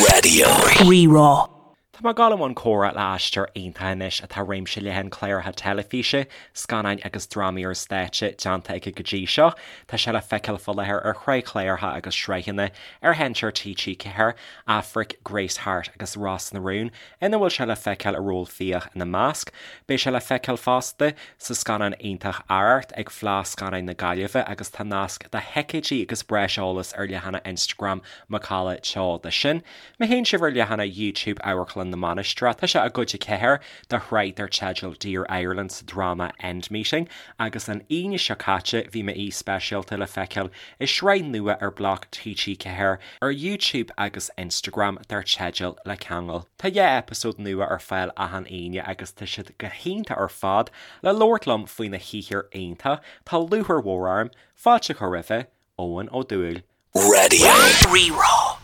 Raidió Rí-Rá. Tá mé ag dul i mbun comhrá le aisteoir iontach anois atá réimse leathan cláracha teilifíse, scannáin agus drámaí ar stáitse déanta aige go dtí seo. Tá sé le feiceáil faoi láthair ar shraith chláracha agus sraitheanna ar sheinnteoir TG4, Aifric, Grace Harte agus Ros na Rún, ina bhfuil sé le feiceáil i ról Fiach ina measc. Beidh sé le feiceáil fosta sa scannán iontach Arracht ag Fleadh Scannáin na Gaillimhe agus tá nasc do thicéidí agus breis eolais ar leathanach Instagram Macalla Teo de sin. Má théann sibh ar leathanach YouTube Amharclann na Mainistreach tá sé i gcuid 4 de shraith dar teideal Dear Ireland sa dráma End Meeting agus an Aoine seo caite bhí m'aoi speisialta le feiceáil i sraith nua ar Bloc TG4 ar YouTube agus Instagram dar teideal Le Ceangal. Tá 2 eipeasóid nua ar fáil achan Aoine agus tá siad go hiontach ar fad. Le labhairt liom faoina shaothar iontach, tá lúcháir mhór orm fáilte a chur roimhe, Eoin Ó Dubhghaill. Raidió Rí-Rá.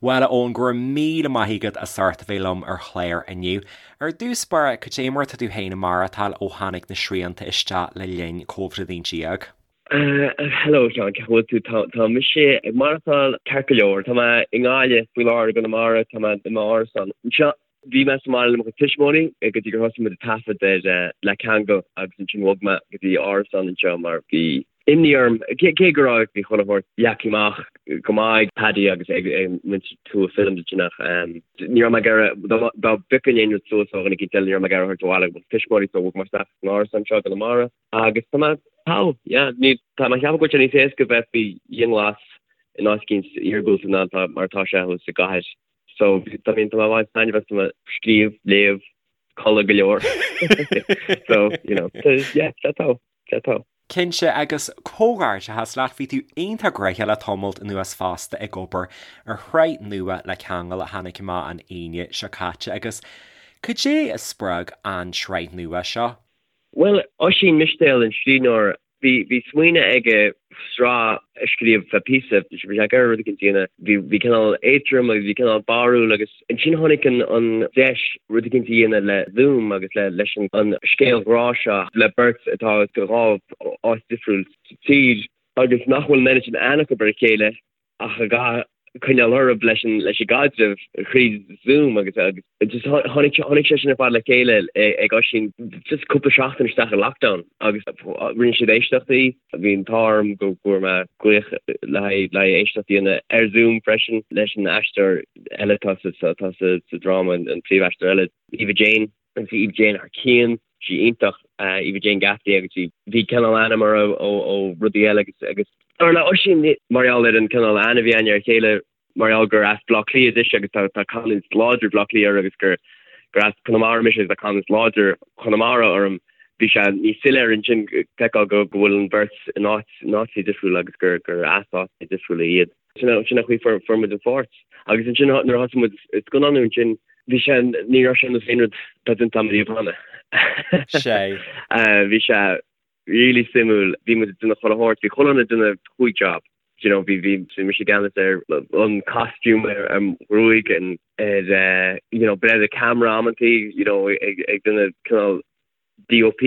Bhuel, a Eoin, go raibh míle maith agat as ucht a bheith liom ar chlár inniu. Ar dtús báire, cad é mar atá tú féin ag maireachtáil ó tháinig na srianta isteach le linn Covid-19? Hello a Sheáin, cén chaoi a bhfuil tú? Tá mise ag maireachtáil ceart go leor. Tá mé i nGaillimh faoi láthair i gConamara, tá mé i m'árasán anseo. Bhí mé sa mbaile le mo chuid tuismitheoirí go dtí gur thosaigh muid ag taifead ar Le Ceangal agus ansin bhog mé go dtí árasán anseo mar bhí imní orm, cé go raibh bhí chuile shórt leagtha amach go maith ag Paddy agus ag muintir Tua Films ansin ach ní raibh mé ag iarraidh, dá bpiocfainn aon rud suas ó dhuine éicint eile ní raibh mé ag iarraidh a thabhairt abhaile go mo tuismitheoirí so bhog mé isteach san árasán anseo i gConamara. Agus tá mé togha, yeah. Ní, tá mé ag ceapadh go bhfuil sé níos éasca bheith faoi dhianghlas in áit éicint iargúlta ná tá, mar atá sé thuas i gcathair. So, I mean, tá mé ag baint taitneamh as, tá mé ag scríobh, léamh, codladh go leor. So, you know, yeah, tá togha, tá togha. Cinnte, agus comhghairdeachas leat, bhí tú iontach gnoitheach le tamalt anuas fosta ag obair ar shraith nua Le Ceangal a tháinig amach an Aoine seo caite agus cad é a spreag an tsraith nua seo? Bhuel, Oisín Mistéil, an scríbhneoir, bhí, bhí smaoineamh aige sraith a scríobh feadh píosa, bhí sé ag iarraidh rud éicint a dhéanamh, bhí, bhí cineál éadrom agus bhí cineál barrúil agus ansin tháinig an, an deis rud éicint a dhéanamh le Zoom agus le, leis an, an scéal ghrá seo le beirt atá i dhá áit difriúil sa tír agus nach bhfuil an oiread sin aithne acu ar a chéile. ach a gcaithfidh coinneáil orthu leis an leis an gcaidreamh thríd Zoom agus agus just tháinig tháinig sé sin ar fad le chéile ag Oisín just cúpla seachtain isteach i lockdown agus rinne siad éisteachtaí bhí an t-ádh orm go bhfuair mé glaoch le haghaidh le haghaidh éisteacht a dhéanamh ar Zoom freisin leis an aisteoir eile atá sa atá sa sa dráma an príomhaisteoir eile Eva Jane Agus bhí Eva Jane thar cionn, sí iontach, Eva Jane Gaffney agus bhí, bhí cineál aithne agam uirthi ó, ó rudaí eile agus, agus dar le Oisín, mar gheall ar an cineál aithne a bhí againn ar a chéile, mar gheall gur as Baile Átha Cliath dise agus tá, tá canúint láidir Bhaile Átha Cliath uirthi agus gur, gur as Conamara mise agus tá canúint láidir Chonamara orm, bhí sé níos soiléire ansin feiceáil go, go bhfuil an bheirt in áit, in áiteacha difriúla agus gur, gur as áiteacha difriúla iad. Sin an chaoi a fuair muid an pháirt. Agus ansin nuair a thosaigh muid ag scannánú ansin, bhí sé, ní raibh sé ar nós aon rud atá déanta agam riamh cheana. Sé. Bhí sé really suimiúil. Bhí muid ag déanamh chuile shórt, bhí chuile dhuine ag déanamh chúig job. Do you know, bhí, bhí, bhí mise i gceannas ar an costume, ar an ghruaig, ar, you know, breith ar an camera amantaí, you know, ag, ag déanamh cineál DOP,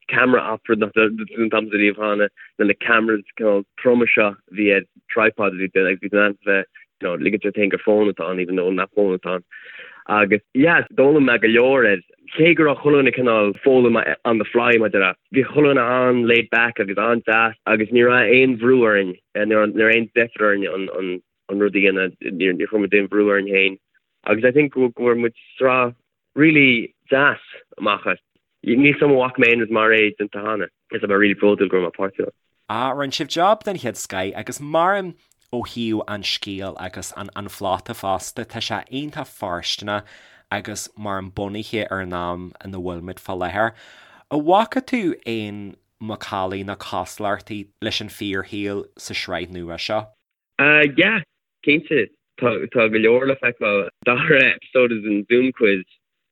camera op, rud nach raibh déanta agamsa riamh cheana, na na cameras cineál troma seo a bhí ar tripod a bhí agus bhí tú in ann bheith you know ligint ort féin gur fón atá ann even though nach fón atá ann. Agus yeah d'fhoghlaim mé go leor air. Cé go raibh chuile dhuine cineál foghlaim on the fly mar a déarfá, bhí chuile dhuine an-laid back agus an-deas agus ní raibh aon bhrú orainn, ní raibh aon deifir orainn an an an rud a dhéanamh, níor chuir muid aon bhrú orainn féin. Agus I think go bhfuair muid sraith really deas amach as. Níl 's agam an bhfaca mé aon rud mar é déanta cheana. Is tá mé really bródúil go raibh mé páirteach ann. Ah, rinne sibh job den chéad scoith agus maram ó thaobh an scéil agus an an phlota fosta, tá sé iontach fóirsteanach agus maram bunaithe ar an am ina bhfuilimid fá láthair. An bhfaca tú aon macallaí nó cosúlachtaí leis an fíorshaol sa sraith nua seo? Ah yeah, cinnte. Tá tá go leor le feiceáil. Dara episode is an Zoom quiz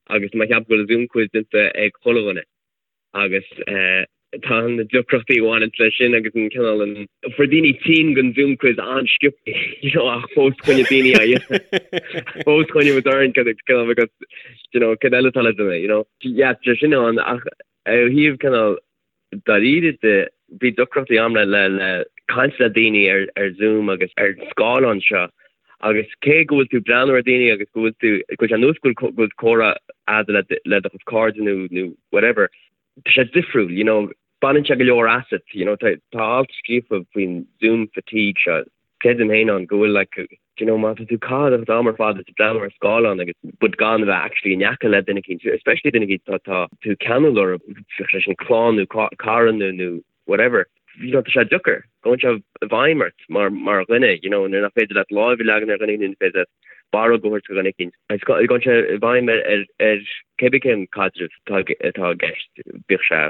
agus tá mé ag ceapadh go bhfuil Zoom quiz déanta ag chuile dhuine agus eh tá na deacrachtaí a bhaineanns leis sin agus an cineál an fuair daoine tinn den Zoom quiz an-sciobtha you know ach fós choinnigh daoine á dhéanamh. Fós choinnigh muid orainn cineál because you know cad eile atá le déanamh you know. Yeah tá sin ann ach ó thaobh cineál dáiríre de, bhí deacrachtaí agam le le caint le daoine ar ar Zoom agus ar scáileán seo. Agus cé go bhfuil tú ag breathnú ar daoine agus go bhfuil tú, go bhfuil sé ar nós go bhfuil comhrá a'd le le do chuid cairde nó nó whatever, tá sé difriúil, you know, baineann sé go leor asat, you know, tá tá alt scríofa faoin Zoom fatigue seo, creidim féin ann go bhfuil like, you know, má tá tú ag caitheamh do chuid am ar fad ag breathnú ar scáileán agus but gan a bheith actually in aice le duine eicínt, especially duine eicínt tá tá tú ceanúil orthu, bíodh sé sin clann nó cara nó nó whatever, you know, tá sé deacair, gabhann sé i bhfeidhm ort mar, mar dhuine, you know, nuair nach féidir leat láimh a leagan ar dhuine nó nach féidir leat barróg a thabhairt do dhuine eicínt. Agus gabhann sé i bhfeidhm ar, ar, ar cébí cén caidreamh atá, atá i gceist, bíodh sé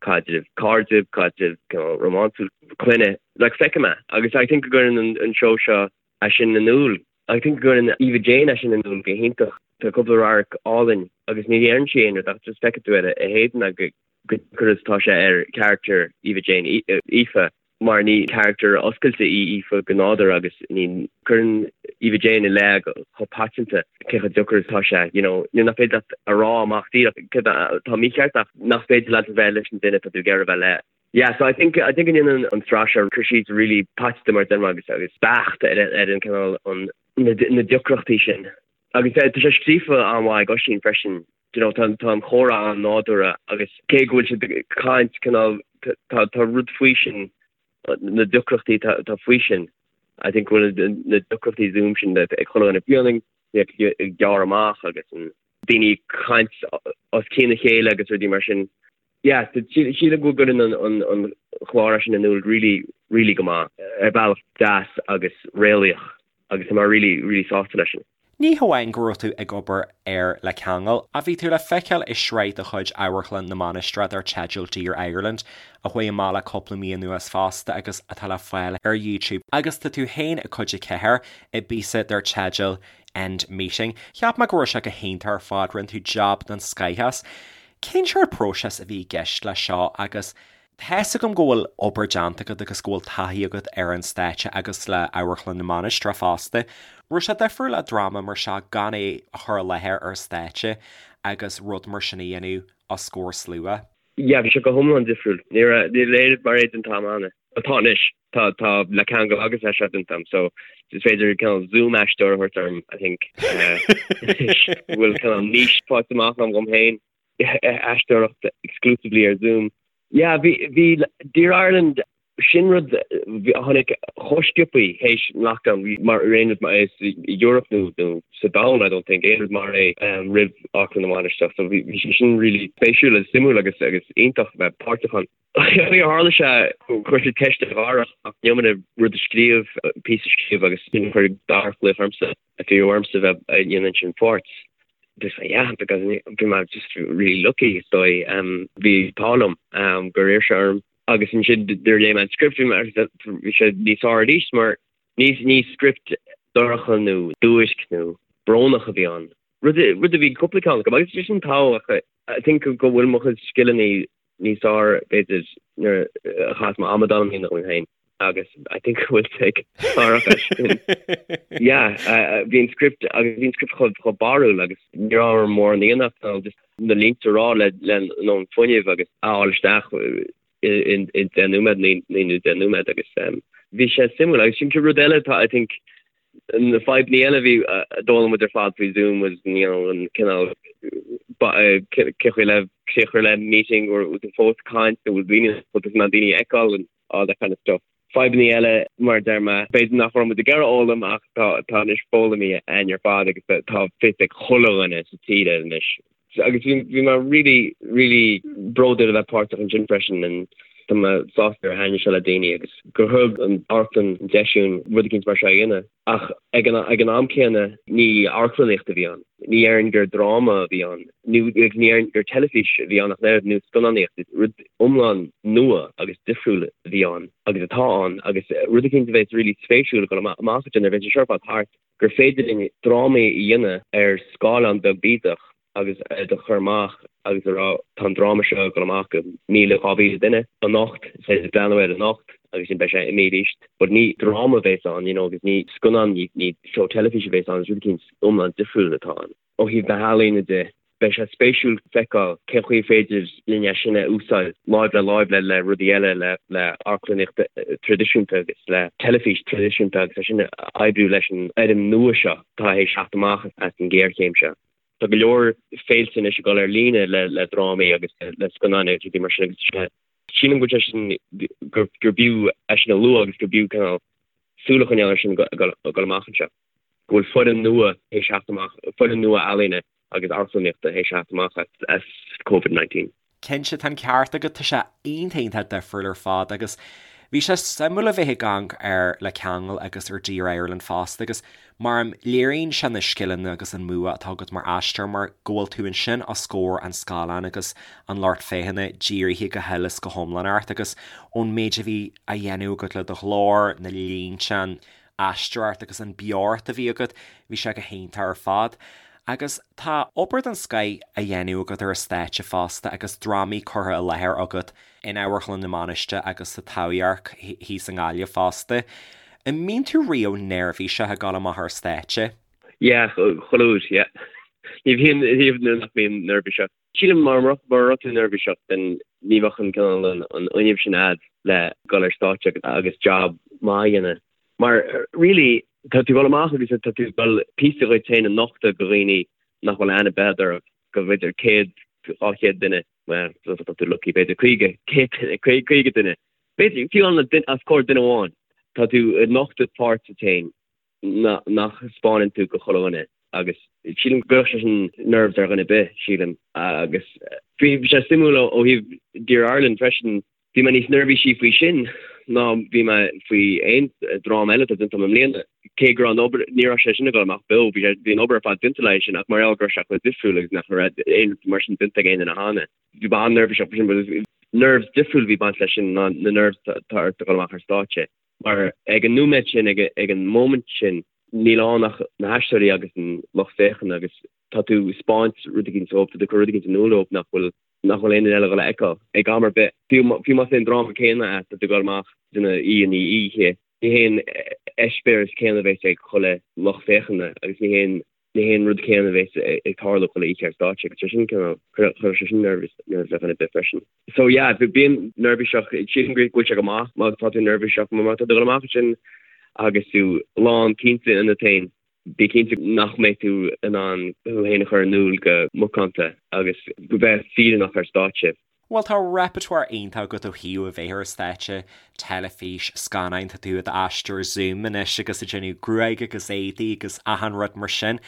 caidreamh cairde, caidreamh you know, rómánsúil, clainne, like feicim é. Agus I think go gcuireann an, an seó seo é sin in iúl. I think go gcuireann Eva Jane é sin in iúl go hiontach. Tá cúpla radharc álainn agus ní deireann sí aon rud ach just feicfidh tú ar a héadan go deacair is atá sé ar character Eva Jane, Aoife, mar ní character oscailte í Aoife go nádúrtha agus ní cuireann Eva Jane i leith chomh paiteanta cé chomh deacair is atá sé, you know, nuair nach féidir leat a rá amach díreach céard atá mícheart ach nach féidir leat a bheith leis an duine atá tú ag iarraidh a bheith le. Yeah, so I think I think go ndéanann an tsraith seo cur síos really paiteanta mar a deir mé agus agus beacht ar ar an cineál an na na deacrachtaí sin. Agus tá sé scríofa an-mhaith ag Oisín freisin. You know, tá tá an chomhrá an-nádúrtha agus cé go bhfuil siad ag caint cineál tá tá rud faoi sin na deacrachtaí tá tá faoi sin. I think go bhfuil na deacrachtaí Zoom sin ag chuile dhuine fiú ag gearradh amach agus an daoine ag caint os cionn a chéile agus rudaí mar sin. Yeah, sílim go gcuireann an chlár sin in iúl really, really go maith, ar bhealach deas agus réalaíoch agus tá mé really, really sásta leis sin. Ní hamháin go raibh tú ag obair ar Le Ceangal, ach bhí tú le feiceáil i sraith de chuid Amharclann na Mainistreach dar teideal Dear Ireland, a chuaigh amach le cúpla mí anuas fosta agus atá le fáil ar YouTube. Agus tá tú féin i cuid 4 i bpíosa dar teideal End Meeting. Cheap mé go raibh sé go hiontach ar fad, rinne tú jab den scoith as. Cén sórt próiseas a bhí i gceist leis seo agus tá's agam go bhfuil obair déanta agat agus go bhfuil taithí agat ar an stáitse agus le Amharclann na Mainistreach fosta. Raibh sé difriúil le dráma mar seo gan é a chur i láthair ar stáitse agus rud mar sin a dhéanamh os comhair slua? Yeah, bhí sé go hiomlán difriúil. Ní raibh, níl aon rud mar é déanta agam cheana. Tá anois. Tá, tá Le Ceangal agus é seo déanta agam, so is féidir cineál Zoom aisteoir a thabhairt orm, I think. Anois, go bhfuil cineál niche faighte amach agam dhom féin, aisteoireacht exclusively ar Zoom. Yeah, bhí, bhí Dear Ireland, sin rud a tháinig chomh sciobthaí théis an lockdown, bhí mar aon rud mar é sa Europe nó, nó sa domhan, I don't think, aon rud mar é roimh Amharclann na Mainistreach, so bhí, bhí sé sin really spéisiúil agus suimiúil agus, agus iontach a bheith páirteach ann. Níor tharla sé, chuir siad ceist ar Dharach an iomaire rud a scríobh, píosa a scríobh agus ansin chuir Darach glaoch ormsa, a bhí ormsa bheith ag déanamh sin pháirt. Just yeah, because bhí mé just really lucky is dóigh. Bhí an t-ádh liom gur iarr sé orm agus ansin nuair a léigh mé an script bhí mé bhí sé níos fearr arís mar ní ní script dorcha nó duairc nó brónach a bhí ann. Rud rud a bhí cúpla ceann acu agus sin tábhachtach I think go bhfuil mo chuid scileanna níos fearr b'fhéidir nuair a chaithfeas mé amadán a dhéanamh dhom féin agus I think go bhfuil sé ag Darach as sin. Yeah, bhí an script agus bhí an script chomh chomh barrúil agus ní raibh orm mórán a dhéanamh ach just na línte a rá le le an fuinneamh agus a fháil isteach in in 10 nóiméad 9 nó 10 nóiméad agus bhí sé suimiúil agus sin rud eile atá I think na fadhbanna eile a bhí a d'fhoghlaim muid ar fad faoi Zoom was you know an cineál cé chaoi le críoch a chur le meeting or tú fós ag caint nó bhfuil daoine bhfuil na daoine a fheiceáil and all that kind of stuff. Fadhbanna eile mar a deir mé b'fhéidir nach raibh muid ag iarraidh fhoghlaim ach tá tá anois foghlamtha againn ar fad agus tá fios ag chuile dhuine sa tír air anois. Agus bhí bhí mé really really bródúil a bheith páirteach ansin freisin and tá mé sásta gur thaitnigh sé le daoine agus gur thug an amharclann an deis dúinn rud eicínt mar seo a dhéanamh. Ach ag an ag an am céanna ní amharclannaíocht a bhí ann. Ní déarfainn gur dráma a bhí ann nó agus ní déarfainn gur teilifís a bhí ann ach an oiread nó scannánaíocht. Rud iomlán nua agus difriúil a bhí ann agus atá ann agus rud eicínt a bheas really spéisiúil ag dul amach ansin nuair a bheidh sé seo ar fad thart. gur féidir linn drámaí a dhéanamh ar scáileán beag bídeach agus iad a chur amach agus a rá tá an dráma seo ag dul amach go 1,000, 2,000 duine anocht, is féidir breathnú air anocht agus sin beidh sé imithe arís. But ní dráma a bhéas ann, you know, agus ní scannán, ní seó teilifíse a bhéas ann, is rud eicínt iomlán difriúil atá ann. Ó thaobh na healaíne de. Beidh sé spéisiúil feiceáil cén chaoi féidir linn é sin a úsáid láimh le láimh le le rudaí eile, le le amharclannaíocht traidisiúnta agus le teilifís traidisiúnta agus é sin a oibriú leis an fhoirm nua seo atá théis teacht amach as an ghéarchéim seo. Tá go leor féilte anois ag dul ar líne le le drámaí agus le scannáin agus rudaí mar sin agus sílim go bhfuil sé sin gur b'fhiú é sin a lua agus gur b'fhiú cineál súil a choinneáil air sin ag dul amach anseo. Go bhfuil foirm nua théis theacht amach, foirm nua ealaíne agus amharclannaíochta théis theacht amach as Covid-19. Cinnte, tá an ceart agat, tá sé iontach iontach difriúil ar fad agus bhí sé suimiúil a bheith ag amharc ar Le Ceangal agus ar Dear Ireland fosta agus mar léiríonn sé na scileanna agus an bua atá agat mar aisteoir mar go bhfuil tú ansin os comhair an scáileáin agus an lucht féachana dírithe go huile is go hiomlán ort agus ón méid a bhí á dhéanamh agat le do ghlór, na línte, an aisteoireacht agus an beocht a bhí agat, bhí sé go hiontach ar fad. Agus tá obair den scoith á dhéanamh agat ar an stáitse fosta agus drámaí curtha i láthair agat in Amharclann na Mainistreach agus sa Taibhdhearc thíos i nGaillimh fosta. An mbíonn tú riamh neirbhíseach ag dul amach ar stáitse? Yeah, chuile uair, yeah. Ní bhíonn riamh nuair nach mbím neirbhíseach. Sílim mura mbeadh tú neirbhíseach then ní bheadh an cineál an fhuinneamh sin a'd le dul ar stáitse agus job maith a dhéanamh. Mar really tá tú ag dul amach agus tá tú ag dul píosa dhuit féin a nochtadh go dhaoine nach bhfuil aithne ar bith ort, go b'fhéidir 100, 200 duine, well tá tú lucky b'fhéidir 50, 100 duine, 50 duine, b'fhéidir fiú os comhair duine amháin. Tá tú ag nochtadh páirt duit féin nach spáineann tú go chuile dhuine agus sílim go gcuirfeadh sé sin nerves ar dhuine ar bith, sílim. Agus bhí sé suimiúil ó thaobh Dear Ireland freisin, bhí mé níos neirbhísí faoi sin ná bhí mé faoi aon dráma eile atá déanta agam i mbliana. Cé go raibh an obair, ní raibh sé sin ag dul amach beo, bhí sé, bhí an obair ar fad déanta le sin ach mar gheall go raibh sé chomh difriúil agus nach raibh aon rud mar sin déanta ag aon duine cheana. Bhí mé an-neirbhíseach faoi sin, but nerves difriúil a bhí ag baint leis sin ná na nerves atá ort ag dul amach ar stáitse. Mar ag an nóiméad sin, ag an moment sin, níl ann ach na haisteoirí agus an lucht féachana agus tá tú ag spáint rud éicint dóibh, tá tú ag cur rud éicint in iúl dóibh nach bhfuil nach bhfuil aon duine eile ag dul a fheiceáil ag am ar bith. Fiú fiú más é an dráma céanna é, tá tú ag dul amach duine í an oíche, ní hé an eispéireas céanna a bheas ag chuile lucht féachana agus ní hé an ní hé an rud céanna a bheas ag tarlú chuile oíche ar stáitse agus sé sin cineál, chuirfeadh sé sin nervous ar dhuine ar bith freisin. So yeah, bím neirbhíseach, sílim go bhfuil sé go maith má tá tú neirbhíseach, má tá tú ag dul amach ansin agus tú lán cinnte ionat féin, bí cinnte nach mbeidh tú in ann thú féin a chur in iúl go macánta agus go bheith fírinneach ar stáitse. Bhuel, tá repertoire iontach agat ó thaobh a bheith ar stáitse, teilifís, scannáin, tá tú i d'aisteoir Zoom anois agus ag déanamh gruaig agus éadaí agus achan rud mar sin.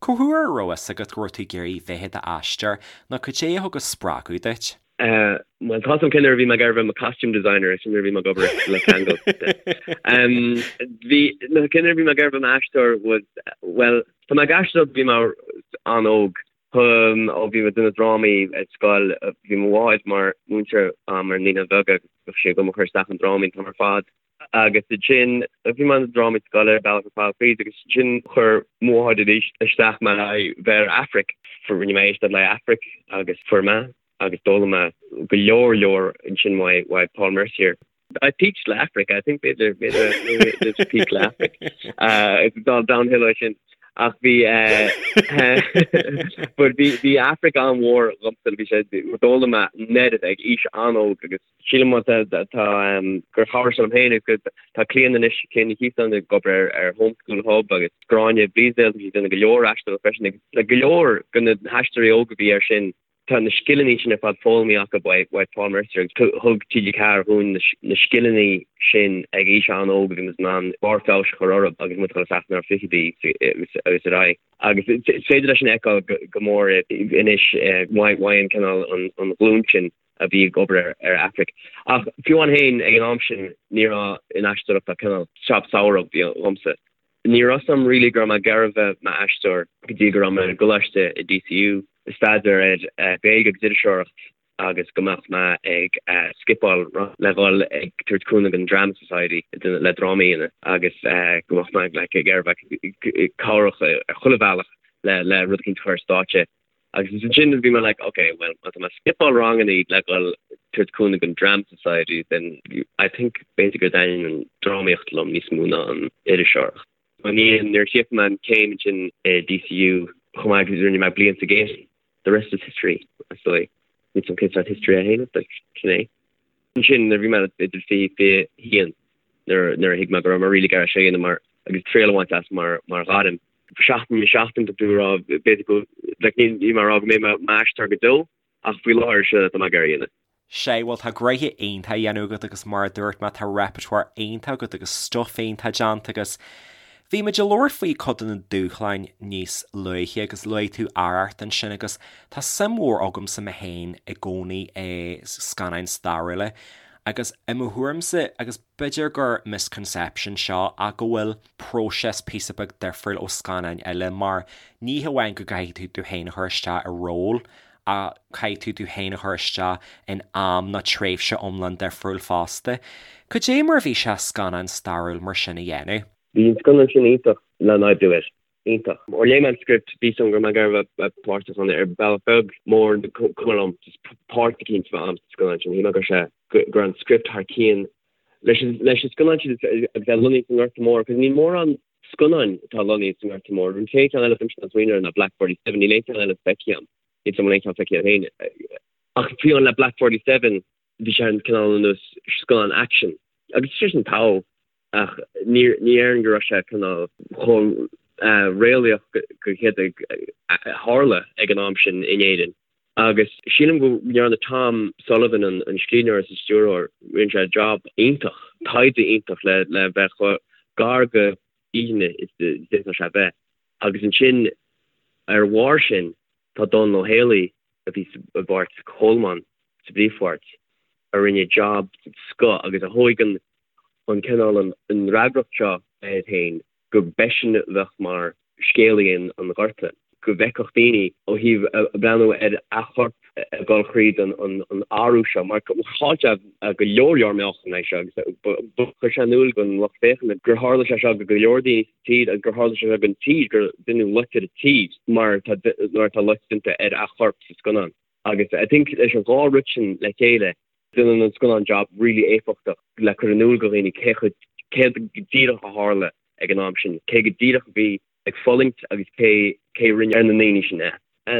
Cá huair a raibh fhios agat go raibh tú ag iarraidh bheith i d'aisteoir nó cad é a thug an spreagadh duit? Bhuel, tá a fhios agam cén uair a bhí mé ag iarraidh bheith i mo costume designer, sin nuair a bhí mé ag obair le Ceangal. Bhí, nó cén uair a bhí mé ag iarraidh bheith i m'aisteoir was, bhuel, tá mé ag aisteoireacht ó bhí mé an-óg. Ó bhí mé ag déanamh drámaí ar scoil, bhí mo mháthair mar mhúinteoir agam ar Naíonáin Bheaga agus bhíodh sí ag dul mo chur isteach i ndrámaí an t-am ar fad. Agus ansin bhí mé i ndrámaí scoile ar bealach ar fad fríd agus ansin chuir mo mháthair arís isteach mé le bheith ar Aifric. Rinne mé éisteacht le Aifric agus fuair mé agus d'fhoghlaim mé go leor leor ansin uaidh Paul Mercier. I peaked le Aifric, I think b'fhéidir b'fhéidir there's peak le Aifric. It's all downhill ó sin. Ach bhí but bhí bhí Aifric an-mhór dhomsa bhí sé d'fhoghlaim mé an oiread ag aois an-óg agus sílim má tá tá gur chabhraigh sé liom féin agus tá Clíona anois Clíona Ní Chíostáin ag obair ar ar Homeschool Hub agus Gráinne Bleasdale tá sí ag déanamh go leor aisteoireacht freisin agus le go leor de na haisteoirí óga a bhí air sin Tá na scileanna sin ar fad foghlamtha acu uaidh Paul Mercier agus thug TG4 dhúinn na scileanna sin ag aois an-óg agus muid in ann barr feabhais a chur orthu agus muid ag dul isteach inár fichidí agus ar aghaidh. Agus is féidir leis sin a fheiceáil go mór anois uaidh an cineál an ghlúin sin a bhí ag obair ar Aifric. Ach fiú amháin féin ag an am sin ní raibh in aisteoireacht ach cineál jab samhraidh dhomsa. Ní raibh fhios a'm really go raibh mé ag iarraidh bheith m'aisteoir go dtí go raibh mé i gcoláiste i DCU ag staidéar ar Ghaeilge agus Iriseoireacht agus go mbeadh mé ag skipeáil le dhul ag tabhairt cúnamh don Drama Society le drámaí a dhéanamh agus go mbeadh mé like ag iarraidh bheith cabhrach ar chuile bhealach le le rud eicínt a chur ar stáitse. Agus ansin bhí mé like ok well má tá mé ag skipeáil rangannaí le dhul tabhairt cúnamh don Drama Society then I think b'fhéidir go dtaitníonn an drámaíocht liom níos mó ná an iriseoireacht. I ndiaidh nuair a chríochnaigh mé an chéim ansin i DCU chomh maith agus rinne mé bliain sa Gate. The rest is history, is dóigh. Níl 's a'm cén sórt history é féin, but sin é. Ansin nuair a bhí mé idir 20, 21 nuair nuair a thuig mé go raibh mé really ag iarraidh seo a dhéanamh mar agus triail a bhaint as mar mar ghairm. Seachtain i seachtain tá tú ag rá b'fhéidir go like níl níl mé ag rá go mbeidh mé i m'aisteoir go deo ach faoi láthair seo atá mé ag iarraidh a dhéanamh. Sea, bhuel tá gnoithe iontach á dhéanamh agat agus mar a dúirt mé tá repertoire iontach agat agus stuif iontach déanta agus bhí muid ag labhairt faoi cuid de na dúshláin níos luaithe agus luaigh tú Arracht ansin agus tá suim mhór agamsa mé féin i gcónaí i scannáin stairiúla agus i mo thuairimse agus b'fhéidir gur misconception seo ach go bhfuil próiseas píosa beag difriúil ó scannáin eile mar ní hamháin go gcaithfidh tú tú féin a chur isteach i ról ach caithfidh tú tú féin a chur isteach in am nó tréimhse iomlán difriúil fosta. Cad é mar a bhí sé scannán stairiúil mar sin a dhéanamh? Bhí an scannán sin iontach le n-oibriú air. Iontach. Ó léigh mé an script, bhí 's a'm go raibh mé ag iarraidh a bheith páirteach ann ar bhealach beag, mór, cuma liom, just páirt eicínt a bheith a'm sa scannán sin. Shíl mé go raibh sé, go raibh an script thar cionn leis an, leis an scannán sin agus é lonnaithe sa nGorta Mór, cos níl mórán scannáin atá lonnaithe sa nGorta Mór. An t-aon cheann eile atá mise ag smaoineamh air ná Black 47, níl aon cheann eile feicthe agam. Níl 's a'm an bhfuil aon cheann feicthe agat féin. Ach fiú amháin le Black 47, bhí sé an cineál ar nós scannán action. Agus sé sin togha, ach ní déarfainn go raibh sé cineál chomh réalaíoch go céard a tharla ag an am sin in Éirinn. Agus sílim go ndearna Tom Sullivan, an scríbhneoir is an stiúrthóir, rinne sé job iontach, taighde iontach le le bheith chomh gar go fhírinne is a d'fhéadfadh sé bheith. Agus ansin ar a bharr sin tá Dónal Ó Héalaí a bhí i bpáirt Cholmáin sa bpríomhpháirt, a rinne job den scoth agus a thóig an an cineál an fhreagracht seo air féin go b'eisean a bheadh mar scéalaí an Ghorta, go bhfeicfeadh daoine ó thaobh breathnú ar a chorp ag dul thríd an athrú seo, mar chaill sé go leor leor meáchan é seo agus chuir sé in iúl don lucht féachana gur tharla sé seo go go leor daoine sa tír agus gur tharla sé seo don tír, gur deineadh loit ar an tír mar mar atá loit déanta ar a chorp sa scannán. Agus I think leis an dhá rud sin le chéile, déanann an scannán job really éifeachtach le cur in iúl do dhaoine cé chomh céard go díreach a tharla ag an am sin, cé go díreach a bhí ag fulaingt agus cé cé a rinne ar na ndaoine sin é.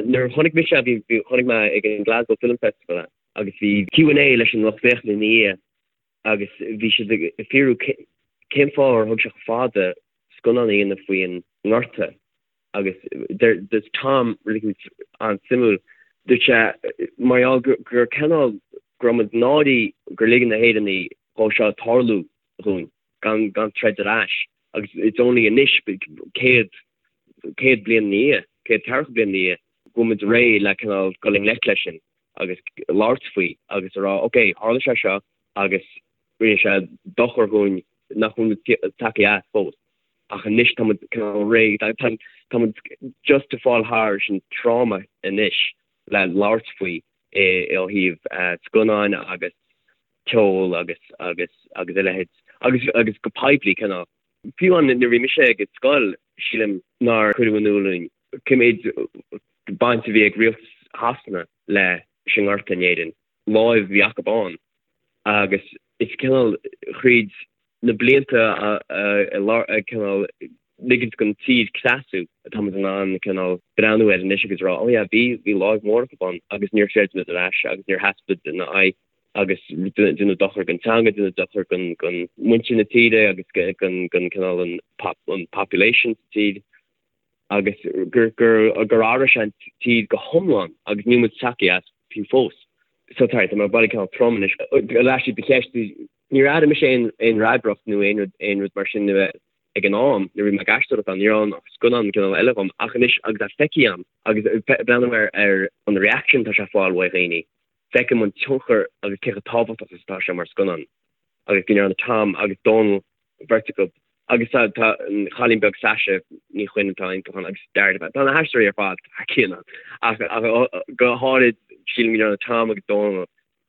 Nuair a chonaic mise é, bhí bhí chonaic mé ag an Glasgow Film Festival é agus bhí Q and A leis an lucht féachana ina dhiaidh agus bhí siad ag fiafraí cén fáth ar thóg sé chomh fada scannán a dhéanamh faoin ngorta. Agus dúirt Tom rud éicint an-suimiúil, dúirt sé mar gheall gur cineál go raibh muid náirithe gur lig na hÉireannaigh dhó seo tarlú dhúinn gan gan troid ar ais agus it's only anois 100 100 bliain ina dhiaidh, 140 bliain ina dhiaidh go bhfuil muid réidh le cineál dul i ngleic leis sin agus labhairt faoi agus a rá ok tharla sé seo agus rinne sé dochar dhúinn nach bhfuil muid tagtha as fós. Ach anois tá muid cineál réidh, tá muid just ag fáil thar an trauma anois le labhairt faoi ó thaobh scannáin agus ceol agus agus agus a leithéid agus agus go poiblí cineál. Fiú amháin nuair a bhí mise ag scoil sílim nár cuireadh in iúl dúinn cé méid baint a bhí ag rialtas Shasana leis an nGorta in Éirinn, láimh a bhí acu ann agus is cineál thríd na blianta ag cineál ligint don tír cneasú atá muid in ann cineál breathnú air anois agus rá oh yeah bhí bhí láimh mhór acu ann agus níor throid muid ar ais agus níor sheas muid ina aghaidh agus deineadh dochar don teanga, deineadh dochar don don muintir na tíre agus don don cineál an an population sa tír agus gur gur gur athraigh sé an tír go hiomlán agus níl muid tagtha as fiú fós. So sorry, tá mé ag baile cineál trom anois. Ar ais do cheist Níor airigh mise aon fhreagracht nó aon rud aon rud mar sin ag an am nuair a bhí mé ag aisteoireacht ann. Ní raibh ann ach scannán cineál eile dhom. Ach anois agus é feicthe agam agus ag breathnú ar ar an reaction atá sé ag fáil uaidh dhaoine, feicim an tionchar agus cé chomh tábhachtach is atá sé mar scannán. Agus go ndearna Tom agus Dónal, beirt acu, agus tá tá an chailín beag Sasha Ní Chuinn atá iontach ann agus Dara, tá na haisteoirí ar fad thar cionn ann. Ach ach go háirid sílim go ndearna Tom agus Dónal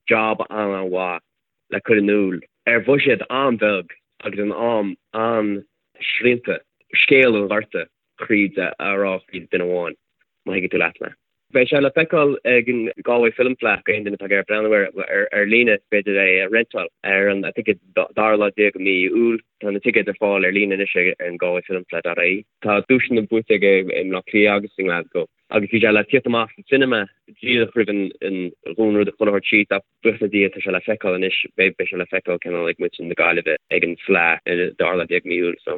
job an-an-mhaith le cur in iúl ar bhuiséad an-bheag agus in am an-srianta scéal an Ghorta thríd a rá thríd duine amháin, má thuigeann tú leat mé. Beidh sé le feiceáil ag an Galway Film Fleadh, aon duine atá ag iarraidh breathnú air ar líne is féidir é a rentáil ar an I think it's dara lá déag de mhí Iúil. Tá na ticéid ar fáil ar líne anois ar an galwayfilmfleadh.ie. Tá duaiseanna buaite aige i mBleá Cliath agus i nGlasgow. Agus bhí sé le tíocht amach sa cinema díreach roimh an dhúnrud a chuile shórt síos ach buíochas le Dia tá sé le feiceáil anois, beidh sé le feiceáil cineál ag muintir na Gaillimhe ag an Fleadh ar an dara lá déag mí Iúil so.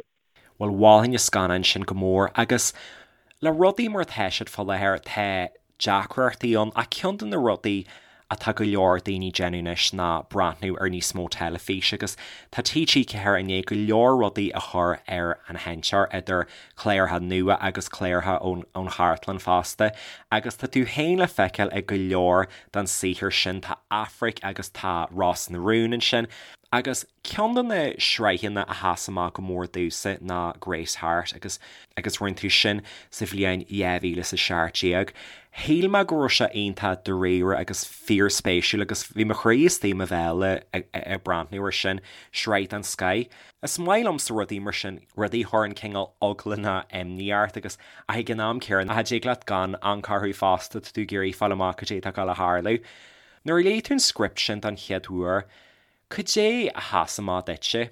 Bhuel mholfainn an scannán sin go mór agus le rudaí mar atá siad fá láthair tá deacrachtaí ann ach ceann de na rudaí atá go leor daoine ag déanamh anois ná breathnú ar níos mó teilifíse agus tá TG4 i ndiaidh go leor rudaí a chur ar an sheinnteoir idir cláracha nua agus cláracha ón chartlann fosta agus tá tú féin le feiceáil ag go leor den saothar sin, tá Aifric agus tá Ros na Rún ansin agus Ceann de na sraitheanna a sheas amach go mór domhsa ná Grace Harte agus agus rinne tú sin sa bhliain 2017. Shíl mé go raibh sé iontach dáiríre agus fíorspéisiúil agus bhí mo chroí istigh i mo bhéal ag breathnú air sin, sraith den scoith. Is maith liomsa rudaí mar sin, rudaí a chuireann cineál eagla nó imní ort agus ach ag an am céanna cha dtig leat gan amharc orthu fosta, tá tú ag iarraidh fáil amach cad é atá ag dul a tharlú. Nuair a léigh tú an script sin don chéad uair, Cad é a sheas amach duitse?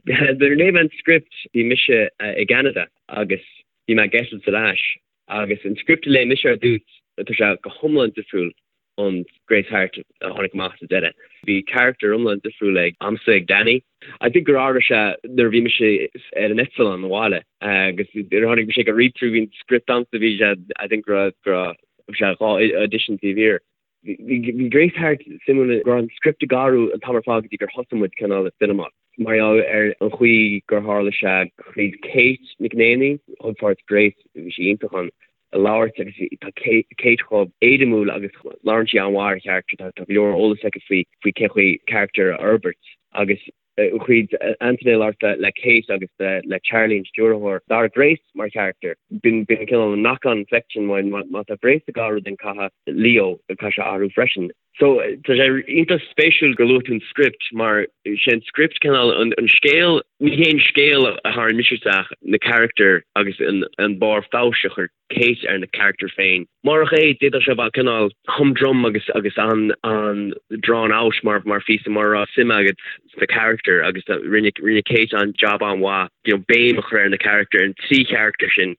Nuair a léigh mé an script bhí mise i gCeanada agus bhí mé ag eitilt ar ais agus an script a léigh mise ar dtús tá sé go hiomlán difriúil ón Grace Harte a tháinig amach sa deireadh. Bhí character iomlán difriúil ag a'msa ag Danny. I think gur athraigh sé nuair a bhí mise ar an eitleán abhaile agus nuair a tháinig mise ag an read through bhí an script a'msa bhí sé I think go raibh go raibh sé 2 audition taobh thiar. Bhí Grace Harte suimiúil go raibh an script ag athrú an t-am ar fad go dtí gur thosaigh muid cineál ag filmeáil. Mar gheall ar an chaoi gur tharla sé thríd Kate McNaney, thug páirt Grace, bhí sí iontach ann, a labhairt agus tá Kate chomh éirimiúil agus labhrann sí an-mhaith ar charachtar, tá go leor eolas aici faoi faoi cén chaoi charachtar a fhorbairt agus thríd Antaine labhairt le Kate agus le Charlie an stiúrthóir. D'athraigh Grace mar charachtar. B'in cineál an knock-on effect sin mar má tá Grace ag athrú then caithfidh Leo caithfidh sé athrú freisin. So tá sé iontach spéisiúil gur luaigh tú an script mar sé an script cineál an scéal, ní hé an scéal a tharraing mise isteach, na carachtair agus an barr feabhais a chuir Kate ar na carachtair féin. Murach é, d'fhéadfadh sé a bheith cineál humdrum agus agus an-drawn out mar mar phíosa mura raibh suim agat sna carachtair agus rinne rinne Kate an job an-mhaith you know béim a chur ar na carachtair, an trí charachtar sin,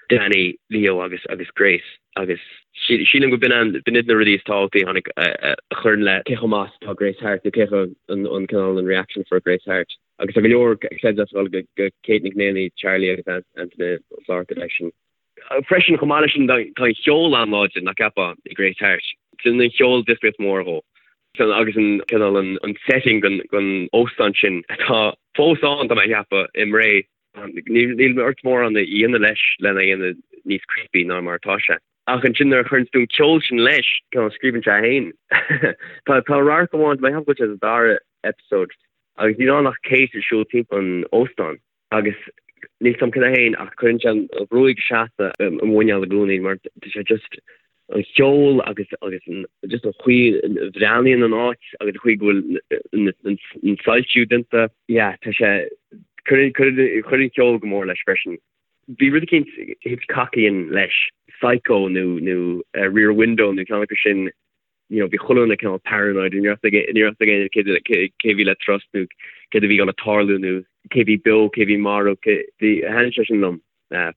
Danny, Leo agus agus Grace agus sílim go b'in an b'in iad na rudaí is tábhachtaí a tháinig a chuireann le cé chomh maith is atá Grace Harte nó cé chomh an an cineál an reaction for Grace Harte. Agus tá go leor credit ag dul go Kate McNaney, Charlie agus Antaine Ó Flatharta leis sin. Freisin, chomh maith leis sin, tá an cheol an-láidir, nach gceapfá, i Grace Harte. Déanann an cheol difríocht mhór dhó. Agus an cineál an setting den óstán sin atá fós ann, tá mé a cheapadh, i mBré. Níl ort mórán a dhéanamh leis lena dhéanamh níos creepy ná mar atá sé. Ach ansin nuair a chuireann tú an ceol sin leis, cineál scríobhann sé é féin. Tá radharc amháin, tá mé ag ceapadh go bhfuil sé sa dara episode, agus níl ann ach Kate ag siúl timpeall an óstáin agus níl 's a'm cad é féin ach cuireann sé an ghruaig seasta i mo mhuineál i gcónaí mar tá sé just an cheol agus agus an just an chaoi a bhreathnaíonn an áit agus an chaoi go bhfuil an soilsiú déanta. Yeah, tá sé cuireann cuireann an ceol go mór leis freisin. Bhí rud eicínt Hitchcockian leis, Psycho nó nó Rear Window nó ceann acu sin, you know, bhí chuile dhuine cineál paranoid, ní raibh ní raibh ag éinne cé cé bhí le trust nó céard a bhí gonna tarlú nó cé bhí beo, cé bhí marbh, cé bhí, thaitnigh sé sin liom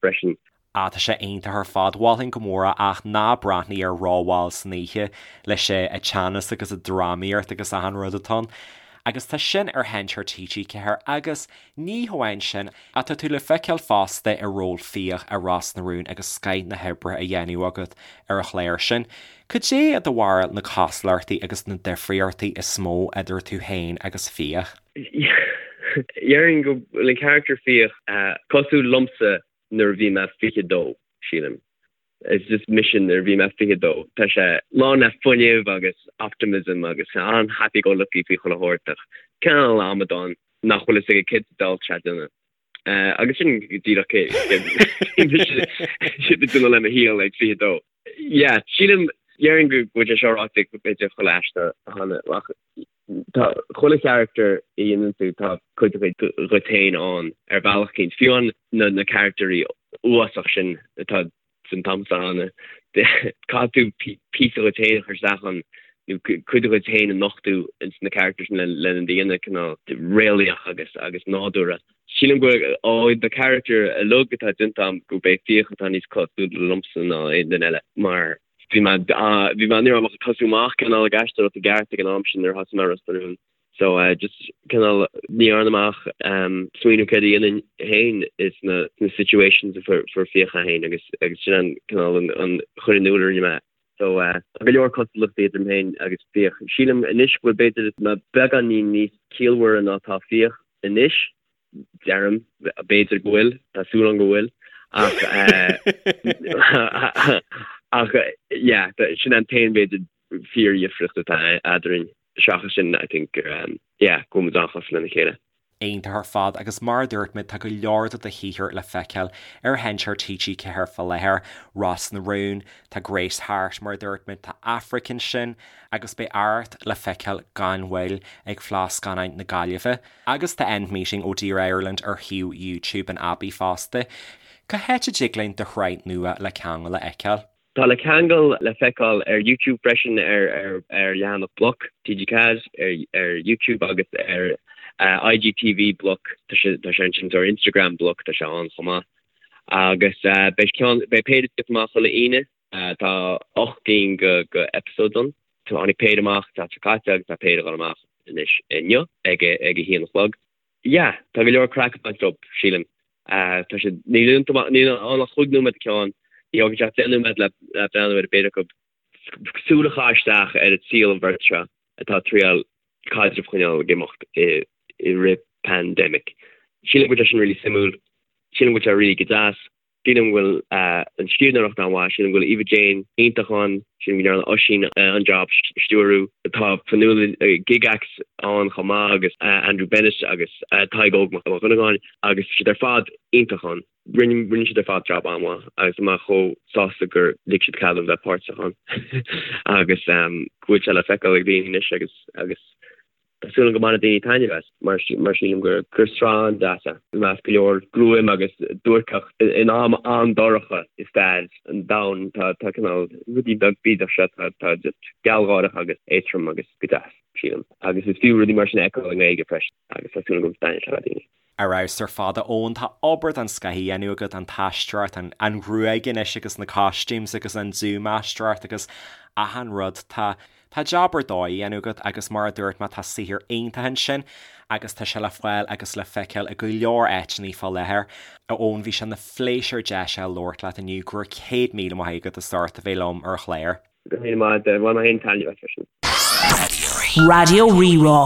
freisin. Ah, tá sé iontach ar fad, mholfainn go mór é ach ná breathnaigh air rómhall san oíche leis an teannas agus an drámaíocht agus achan rud atá ann. Agus tá sin ar sheinnteoir TG4 agus Ní hamháin sin, ach tá tú le feiceáil fosta i ról Fiach i Ros na Rún agus scoith na hoibre á dhéanamh agat ar an chlár sin. Cad é i do bharúil na cosúlachtaí agus na difríochtaí is mó idir tú féin agus Fiach? Déarfainn go bhfuil an charachtar Fiach cosúil liomsa nuair a bhí mé 22, sílim. It's just mise nuair a bhí mé 22. Tá sé lán le fuinneamh agus optimism agus an-happy go lucky faoi chuile shórt ach cineál amadán nach bhfuil fhios aige céard sa diabhal atá sé ag déanamh. Agus sin díreach cé mise ag déanamh le mo shaol ag 22. Yeah, sílim, déarfainn go bhfuil sé seo ráite ag b'fhéidir chuile aisteoir cheana ach tá chuile charachtar a dhéanann tú tá cuid dhuit féin ann ar bhealach eicínt. Fiú an na na carachtarí uafásach sin atá san t-am ann caithfidh tú píosa dhuit féin a chur isteach ann nó cuid dhuit féin a nochtadh ins na carachtair sin lena dhéanamh cineál réalaíoch agus agus nádúrtha. Sílim go bhfuil ó na carachtair uilig atá déanta agam gurb é Fiach atá níos cosúla liomsa ná aon duine eile mar bhí mé bhí mé ní raibh mé ach ag tosú amach cineál ag aisteoireacht i gceart ag an am sin nuair a thosaigh mé Ros na Rún. So just cineál ní dhearna mé ach smaoineamh céard a dhéanfainn féin sna sna situations a fuair fuair Fiach é féin agus agus sin an cineál an an chur in iúl a rinne mé. So tá go leor cosúlachtaí idir mé féin agus Fiach. Sílim anois go bhfuil b'fhéidir mé beagáinín níos ciallmhaire ná tá Fiach anois, deirim, b'fhéidir go bhfuil, tá súil agam go bhfuil, ach ach yeah, sin an t-aon b'fhéidir fíordhifríocht atá eadrainn. Seachas sin I think gur yeah, go bhfuil muid an-chosúil lena chéile. Iontach ar fad agus mar a dúirt mé tá go leor de do shaothar le feiceáil ar sheinnteoir TG4 fá láthair, Ros na Rún, tá Grace Harte mar a dúirt mé, tá Aifric ansin agus beidh Arracht le feiceáil gan mhoill ag Fleadh Scannáin na Gaillimhe agus tá End Meeting Oh Dear Ireland ar shuíomh YouTube an Abbey fosta. Cá háit a dtig linn do shraith nua Le Ceangal a fheiceáil? Tá Le Ceangal le feiceáil ar YouTube freisin ar ar leathanach Bloc TG4 ar ar YouTube agus ar IGTV Bloc tá sé tá sé ansin ar Instagram Bloc tá sé ann chomh maith. Agus beidh ceann beidh péire ag tíocht amach chuile Aoine tá 8 gcinn go go episodes ann. Tháinig péire amach an tseachtain seo caite agus tá péire ag dul amach anois inniu ag ag a haon a chlog. Yeah, tá go leor craic ag baint leo, sílim. Tá siad, níl iontu, níl ann ach chúig nóiméad an ceann, ní thógann sé ach 10 nóiméad le breathnú ar an bpéire acu. Súil a chaitheamh isteach ar an tsaol an bheirt seo atá ag triail caidreamh a choinneáil ag imeacht i rith pandemic. Sílim go bhfuil sé sin really suimiúil, sílim go bhfuil sé really go deas. Sílim go bhfuil an scríbhneoireacht an-mhaith, sílim go bhfuil Eva Jane iontach ann, sílim go ndearna Oisín an-jab stiúrú. Tá Fionnuala Gygax ann chomh maith agus Andrew Bennett agus Tadhg Óg Mac Dhonnagáin agus tá siad ar fad iontach ann. Rinne rinne siad ar fad jab an-mhaith agus tá mé chomh sásta gur lig siad cead dom bheith páirteach ann agus go bhfuil sé le feiceáil ag daoine anois agus agus Tá súil agam go mbainfidh daoine taitneamh as, mar mar sílim gur gur sraith an-deas é. I measc go leor gruaim agus duairceacht in am an-dorcha i stair an domhain tá tá cineál rudaí beag bídeach seo tá tá just gealgháireach agus éadrom agus go deas, sílim. Agus is fiú rudaí mar sin a fheiceáil i nGaeilge freisin agus tá súil agam go dtaitneoidh sé le daoine. Ar fheabhas ar fad, a Eoin. Tá obair den scoth á dhéanamh agat, an t-aisteoireacht, an an ghruaig anois agus na costumes agus an dúmhaisteoireacht agus achan rud. Tá tá jab ar dóigh á dhéanamh agat agus mar a dúirt mé tá saothar iontach ansin agus tá sé le fáil agus le feiceáil i go leor áiteanna fá láthair. A Eoin, bhí sé ina phléisiúr deis a labhairt leat inniu. Go raibh 100,000 maith agat as ucht a bheith liom ar an chlár. Go raibh míle maith agat. Bhain mé féin taitneamh as freisin. Raidió Rí-Rá.